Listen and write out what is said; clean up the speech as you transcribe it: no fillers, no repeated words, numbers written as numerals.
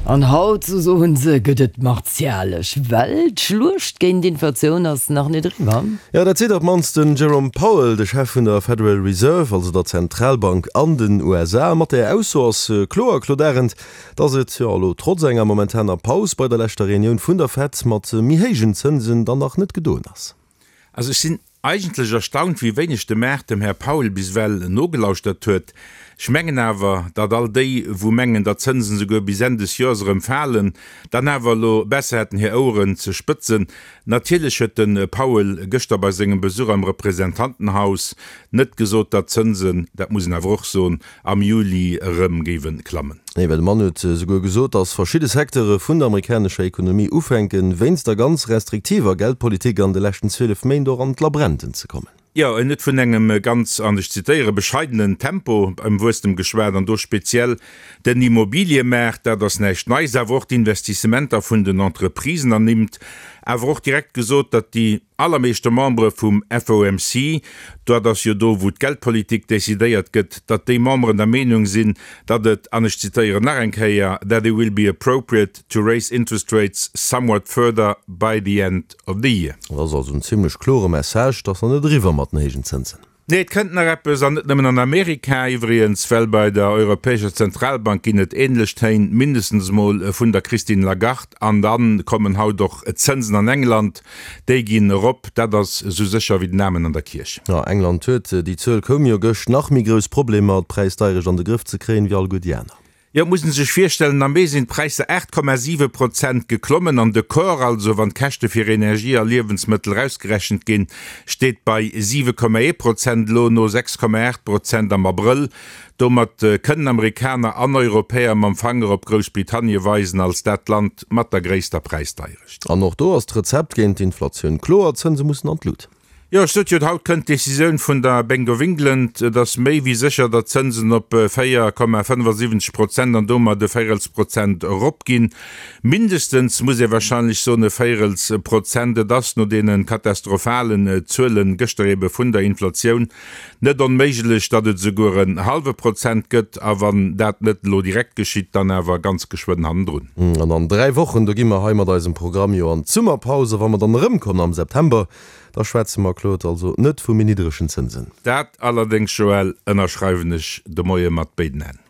An haut, sou soen se, gëtt et martialesch, well d'Schluecht géint d'Inflatioun ass nach net eriwwer. Jo, dat seet op d'mannst den Jerome Powell, de Chef vun der Federal Reserve, also der Zentralbank an den USA. Mat där Ausso ass kloer, Claude Arend, dass et, jo elo trotz enger momentaner Paus bei der leschter Reunioun vun der Fed mat méi héijen Zënsen, dann nach net gedoen ass. Also ech sinn Eigentlech erstaunt, wéi wéineg de Maart dem Här Powell bis ewell nogelauschtert huet. Ech mengen awer, datt all déi, wou mengen, datt d'Zënsen souguer bis Enn des Joers erëm falen, dann awer elo besser hätten hir Oueren ze spëtzen. Natierlech huet de Powell gëschter bei sengem Besuch am Representantenhaus net gesot, datt d'Zënsen, dat muss een awer och soen, am Juli erëm géiwe klammen. Nee, well de Mann huet souguer gesot, datt verschidde Secteure vun der amerikanescher Ekonomie ufänken, wéinst der ganz restriktiver Geldpolitik an de leschten 12 Méint och an d'Labrenten ze kommen. Jo, en huet vun engem ganz, an ech zitéiere, bescheidenen Tempo beim Wuesstem geschwat an do speziell den Immobiliëmaart, dat ass näischt Neis, awer och d'Investissementer vun den Entreprisen ernimmt, awer och direkt gesot, datt déi allermeeschte Membere vum FOMC, dat ass jo do wou d'Geldpolitik decidéiert gëtt, datt déi Memberen der Meenung sinn, datt et, an ech zitéieren nach eng Kéier, that it will be appropriate to raise interest rates somewhat further by the end of the year. Dat ass also en zimlech klore Message, et ass nach net eriwwer mat den héijen Zënsen. Nee, et kënnt nach eppes, an net nëmmen an Amerika iwwregens, well bei der Europäescher Zentralbank ginn et änlech Téin, mindestens emol vun der Christine Lagarde. An da kommen haut och d'Zënsen an England, déi ginn erop, dat ass esou sécher wéi den Amen an der Kierch. Jo, England huet, déi Zuel koum jo gëscht, nach méi grouss Problemer, d'Präisdeierecht an de Grëff ze kréien, wéi alleguer déi aner. Jo, et muss een sech virstellen, am Mee sinn d'Präisser 8,7 Prozent geklommen an de Core, also wann d'Käschte fir Energie a Liewensmëttel erausgerechent ginn, steet bei 7,1 Prozent elo, no 6,8 Prozent am Abrëll. Domat kënnen Amerikaner an Europäer mam Fanger op Groussbritannie weisen als dat Land mat der gréisster Präisdeierecht. An och do ass d'Rezept géint d'Inflatioun kloer, D'Zënse mussen an d'Lut. Jo, ech sot jo, haut kënnt d'Decisioun vun der Bank of England. Et ass méi wéi sécher, datt d'Zënsen op 4,75 Prozent an domat e Véirelsprozent eropginn. Mindestens, muss ee wahrscheinlech soen, e Véirelsprozent. Et ass no deene katastrophalen Zuele gëschter ebe vun der Inflatioun net onméiglech, datt et esouguer en hallwe Prozent gëtt. A wann dat net elo direkt geschitt, dann awer ganz geschwënn hannendrun. An an 3 Wochen, do gi mer hei mat eisem Programm jo an d'Summerpaus. A wa mer dann erëmkommen am September, Da schwätze mer, Claude, also net vu méi niddregen Zënsen. Dat allerdéngs, Joël, ënnerschreiwen ech de Moie mat béiden Hänn.